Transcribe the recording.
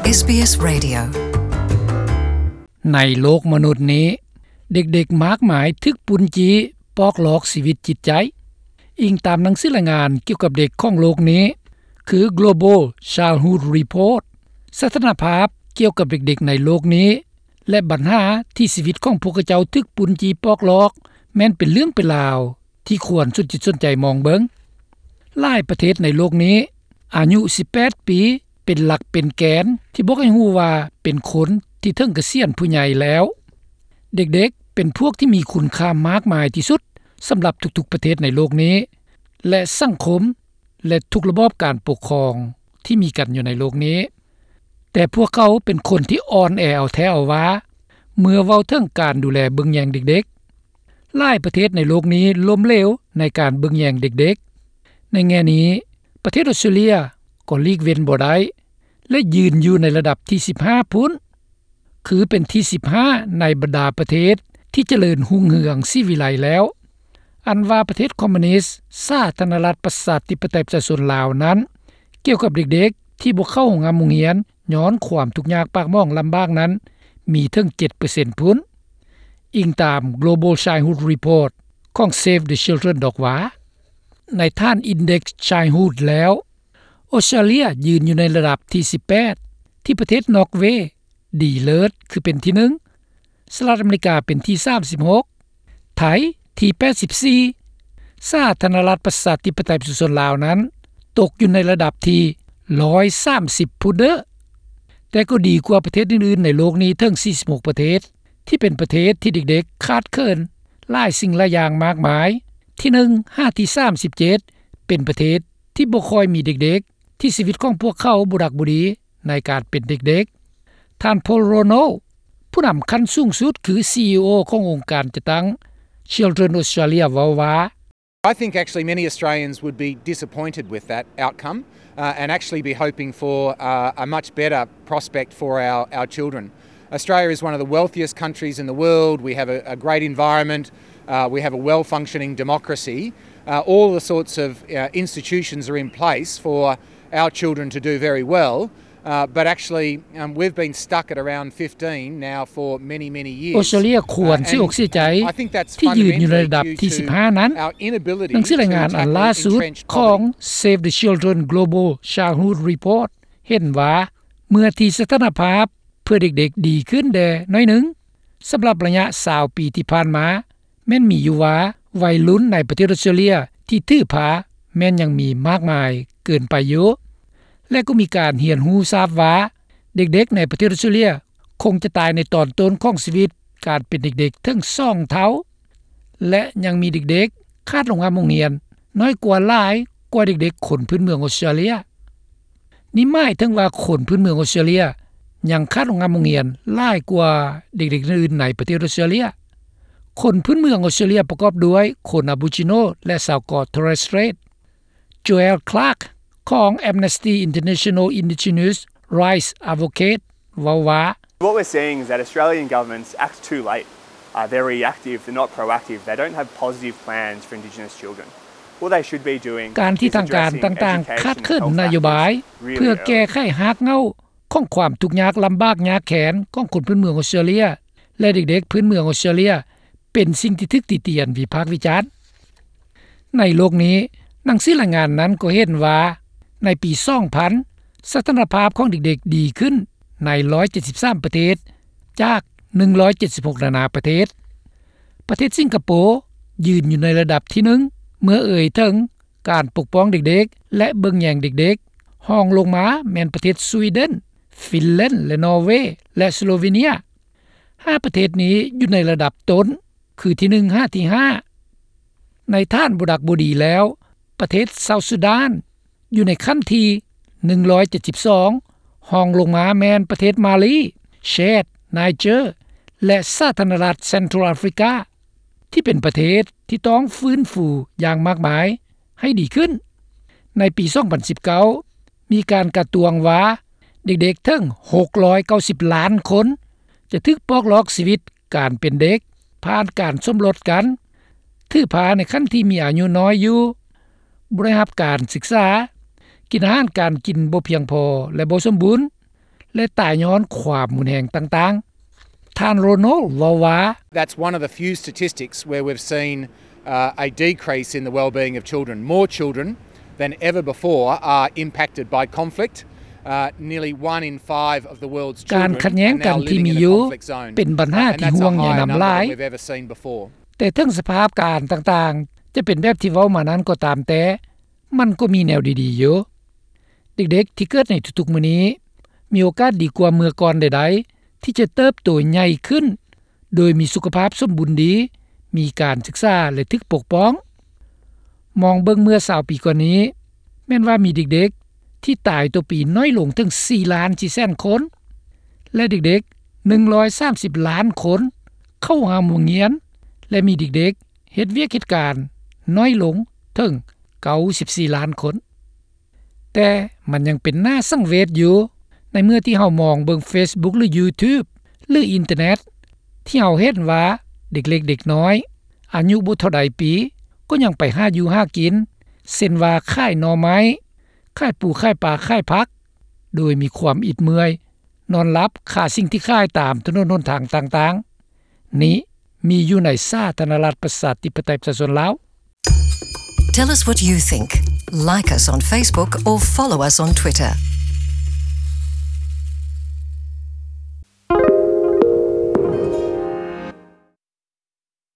ເອສບີເອສ Radio. ໃນໂລກມະນຸດນີ້, ເດັກໆມາກມາຍຖືກປຸ້ນຈີ້ປອກລອກຊີວິດຈິດໃຈ. ອີງຕາມໜັງສືລາຍງານກ່ຽວກັບເດັກຂອງໂລກນີ້ ຄື Global Childhood Report, ສະຖານະພາບກ່ຽວກັບເດັກໆໃນໂລກນີ້ ແລະ ບັນຫາທີ່ຊີວິດຂອງພວກເຂົາເຈົ້າຖືກປຸ້ນຈີ້ປອກລອກ ແມ່ນເປັນເລື່ອງເປັນລາວທີ່ຄວນສົນຈິດສົນໃຈມອງເບິ່ງ. ຫຼາຍປະເທດໃນໂລກນີ້ ອາຍຸສິບແປດປີ ເປັນຫຼັກເປັນແກນທີ່ບອກໃຫ້ຮູ້ວ່າເປັນຄົນທີ່ເຖິງກະສຽນຜູ້ໃຫຍ່ແລ້ວ. ເດັກໆເປັນພວກທີ່ມີຄຸນຄ່າມາກມາຍທີ່ສຸດສຳລັບທຸກໆປະເທດໃນໂລກນີ້ ແລະ ສັງຄົມ ແລະ ທຸກລະບອບການປົກຄອງທີ່ມີກັນຢູ່ໃນໂລກນີ້. ແຕ່ພວກເຂົາເປັນຄົນທີ່ອ່ອນແອເອົາແທ້ເອົາວ່າ ເມື່ອເວົ້າເຖິງການດູແລເບິ່ງແຍງເດັກໆ. ຫຼາຍປະເທດໃນໂລກນີ້ລົ້ມເຫຼວໃນການເບິ່ງແຍງເດັກໆ. ໃນແງ່ນີ້, ປະເທດອອສເຕຣເລຍກໍຫຼີກເວັ້ນບໍ່ໄດ້ ແລະ ຢືນຢູ່ໃນລະດັບທີສິບຫ້າພຸ້ນ, ຄືເປັນທີສິບຫ້າໃນບັນດາປະເທດທີ່ຈະເລີນຮຸ່ງເຮືອງສີວິໄລແລ້ວ. ອັນວ່າປະເທດຄອມມູນິດ ສາທາລະນະລັດປະຊາທິປະໄຕປະຊາຊົນລາວນັ້ນ, ກ່ຽວກັບເດັກໆທີ່ບໍ່ເຂົ້າໂຮງຮ່ຳໂຮງຮຽນຍ້ອນຄວາມທຸກຍາກປາກໝອງລຳບາກນັ້ນ ມີເຖິງເຈັດເປີເຊັນພຸ້ນ, ອີງຕາມ Global Childhood Report ຂອງ Save the Children ດອກວ່າ. ໃນຖານ Index Childhood ແລ້ວ, ອອສເຕຣເລຍຢືນຢູ່ໃນລະດັບທີສິບແປດ ທີ່ປະເທດນອກເວ ດີເລີດ ຄືເປັນທີໜຶ່ງ, ສະຫະລັດອາເມລິກາເປັນທີສາມສິບຫົກ, ໄທທີແປດສິບສີ່, ສາທາລະນະລັດປະຊາທິປະໄຕປະຊາຊົນລາວນັ້ນ ຕົກຢູ່ໃນລະດັບທີຮ້ອຍສາມສິບພຸ້ນເດີ. ແຕ່ກໍດີກວ່າປະເທດອື່ນໆໃນໂລກນີ້ເຖິງສີ່ສິບຫົກປະເທດ ທີ່ເປັນປະເທດທີ່ເດັກໆຂາດເຂີນຫຼາຍສິ່ງຫຼາຍຢ່າງມາກມາຍ. ທີໜຶ່ງຫາທີສາມສິບເຈັດ ເປັນປະເທດທີ່ບໍ່ຄ່ອຍມີເດັກໆ ທີ່ຊີວິດຂອງພວກເຂົາບໍ່ດັກບໍ່ດີໃນການເປັນເດັກໆ. ທ່ານ Paul Rono, ຜູ້ນຳຂັ້ນສູງສຸດ ຄື CEO ຂອງອົງການຈັດຕັ້ງ Children Australia ເວົ້າວ່າ. I think actually many Australians would be disappointed with that outcome, uh, and actually be hoping for, uh, a much better prospect for our, our children. Australia is one of the wealthiest countries in the world. We have a, a great environment. Uh, we have a well-functioning democracy. Uh, all the sorts of, uh, institutions are in place for our children to do very well. Uh, but actually, um, we've been stuck at around fifteen now for many, many years. ອອສເຕຣເລຍຄວນເສຍອົກເສຍໃຈ uh, and I think that's ທີ່ຢືນຢູ່ໃນລະດັບທີສິບຫ້ານັ້ນ. ໜັງສືລາຍງານອັນລ່າສຸດຂອງ Save the Children Global Childhood Report ເຫັນວ່າ ເມື່ອທີ່ສະຖານະພາບເພື່ອເດັກໆດີຂຶ້ນແດ່ໜ້ອຍໜຶ່ງ, ສຳລັບໄລຍະຊາວປີທີ່ຜ່ານມາ ແມ່ນມີຢູ່ວ່າ ໄວລຸ້ນໃນປະເທດອອສເຕຣເລຍທີ່ຖືພາແມ່ນຍັງມີມາກມາຍເກີນໄປຢູ່ ແລະ ກໍມີການຮຽນຮູ້ຊາບວ່າ ເດັກໆໃນປະເທດອອສເຕຣເລຍຄົງຈະຕາຍໃນຕອນຕົ້ນຂອງຊີວິດການເປັນເດັກໆເຖິງສອງເທົ່າ ແລະ ຍັງມີເດັກໆຂາດໂຮງຮ່ຳໂຮງຮຽນ ນ້ອຍກວ່າຫຼາຍກວ່າເດັກໆຄົນພື້ນເມືອງອອສເຕຣເລຍ. ນີ້ໝາຍເຖິງວ່າຄົນພື້ນເມືອງອອສເຕຣເລຍຍັງຂາດໂຮງຮ່ຳໂຮງຮຽນຫຼາຍກວ່າເດັກໆອື່ນໆໃນປະເທດອອສເຕຣເລຍ. ຄົນພື້ນເມືອງອອສເຕຣເລຍປະກອບດ້ວຍຄົນອາໂບຣິຈິໂນ ແລະ ຊາວເກາະ Torres Strait. Joel Clark ຂອງ Amnesty International Indigenous Rights Advocate ເວົ້າວ່າ. What we're seeing is that Australian governments act too late. Uh, they're reactive, they're not proactive, they don't have positive plans for Indigenous children. What they should be doing ການທີ່ທາງການຕ່າງໆຂາດເຂີນນະໂຍບາຍເພື່ອແກ້ໄຂຮາກເຫງົ້າຂອງຄວາມທຸກຍາກລຳບາກຍາກແຄ້ນຂອງຄົນພື້ນເມືອງອອສເຕຣເລຍ ແລະ ເດັກໆພື້ນເມືອງອອສເຕຣເລຍ ເປັນສິ່ງທີ່ຖືກຕິຕຽນວິພາກວິຈານ. ໃນໂລກນີ້, ໜັງສືລາຍງານນັ້ນກໍເຫັນວ່າ ໃນປີສອງພັນ ສະຖານະພາບຂອງເດັກໆດີຂຶ້ນໃນໜຶ່ງຮ້ອຍເຈັດສິບສາມປະເທດ ຈາກໜຶ່ງຮ້ອຍເຈັດສິບຫົກນານາປະເທດ. ປະເທດສິງກະໂປຢືນຢູ່ໃນລະດັບທີໜຶ່ງ ເມື່ອເອີ່ຍເຖິງການປົກປ້ອງເດັກໆ ແລະ ເບິ່ງແຍງເດັກໆ. ຮອງລົງມາແມ່ນປະເທດສະວີເດັນ, ຟິນແລນ ແລະ ນໍເວ ແລະ ສະໂລເວເນຍ. ຫ້າປະເທດນີ້ຢູ່ໃນລະດັບຕົ້ນ ຄືທີໜຶ່ງຫາທີຫ້າ. ໃນຖານບໍ່ດັກບໍ່ດີແລ້ວ, ປະເທດເຊົາຊູດານຢູ່ໃນຂັ້ນທີໜຶ່ງຮ້ອຍເຈັດສິບສອງ, ຮອງລົງມາແມ່ນປະເທດມາລີ, ແຊດ, ໄນເຈີ ແລະ ສາທາລະນະລັດເຊັນທຣັລອາຟຣິກາ ທີ່ເປັນປະເທດທີ່ຕ້ອງຟື້ນຟູຢ່າງມາກມາຍໃຫ້ດີຂຶ້ນ. ໃນປີສອງພັນສິບເກົ້າ ມີການກະຕວງວ່າ ເດັກໆເຖິງຫົກຮ້ອຍເກົ້າສິບລ້ານຄົນ ຈະຖືກປອກລອກຊີວິດການເປັນເດັກ ຜ່ານການສົມລົດກັນ, ຖືພາໃນຂັ້ນທີ່ມີອາຍຸນ້ອຍຢູ່, ບໍ່ໄດ້ຮັບການສຶກສາ, ກິນອາຫານການກິນບໍ່ພຽງພໍ ແລະ ບໍ່ສົມບູນ, ແລະ ຕາຍຍ້ອນຄວາມຮຸນແຮງຕ່າງໆ. ທ່ານ Ronald ເວົ້າວ່າ That's one of the few statistics where we've seen uh, a decrease in the well-being of children. More children than ever before are impacted by conflict. Uh, nearly one in five of the world's children are now living in a conflict zone. ການຂັດແຍ້ງກັນທີ່ມີຢູ່ ເປັນບັນຫາທີ່ຫ່ວງໃຍນຳຫຼາຍ, ແຕ່ເຖິງສະພາບການຕ່າງໆຈະເປັນແບບທີ່ເວົ້າມານັ້ນກໍຕາມແຕ່, ມັນກໍມີແນວດີໆຢູ່. ເດັກໆທີ່ເກີດໃນທຸກໆມື້ນີ້ ມີໂອກາດດີກວ່າເມື່ອກ່ອນໃດໆ ທີ່ຈະເຕີບໂຕໃຫຍ່ຂຶ້ນ ໂດຍມີສຸຂະພາບສົມບູນດີ, ມີການສຶກສາ ແລະ ຖືກປົກປ້ອງ. ມອງເບິ່ງເມື່ອຊາວປີກ່ອນນີ້, ແມ່ນວ່າມີເດັກໆທີ່ຕາຍຕໍ່ປີນ້ອຍລົງເຖິງສີ່ລ້ານສີ່ແສນຄົນ ແລະ ເດັກໆໜຶ່ງຮ້ອຍສາມສິບລ້ານຄົນເຂົ້າຫາໂຮງຮຽນ ແລະ ມີເດັກໆເຮັດວຽກເຮັດການນ້ອຍລົງເຖິງເກົ້າສິບສີ່ລ້ານຄົນ. ແຕ່ມັນຍັງເປັນໜ້າສັງເວດຢູ່ ໃນເມື່ອທີ່ເຮົາມອງເບິ່ງ Facebook ຫຼື YouTube ຫຼື ອິນເຕີເນັດ ທີ່ເຮົາເຫັນວ່າເດັກເລັກເດັກນ້ອຍ ອາຍຸບໍ່ເທົ່າໃດປີ ກໍຍັງໄປຫາຢູ່ຫາກິນ ເຊັ່ນວ່າຂາຍໜໍ່ໄມ້, ຂາຍປູຂາຍປາ, ຂາຍຜັກ ໂດຍມີຄວາມອິດເມື່ອຍ, ນອນຫຼັບຄາສິ່ງທີ່ຂາຍຕາມຖະໜົນຫົນທາງຕ່າງໆ. ນີ້ມີຢູ່ໃນສາທາລະນະລັດ ປະຊາທິປະໄຕ ປະຊາຊົນລາວ. Tell us what you think. Like us on Facebook or follow us on Twitter.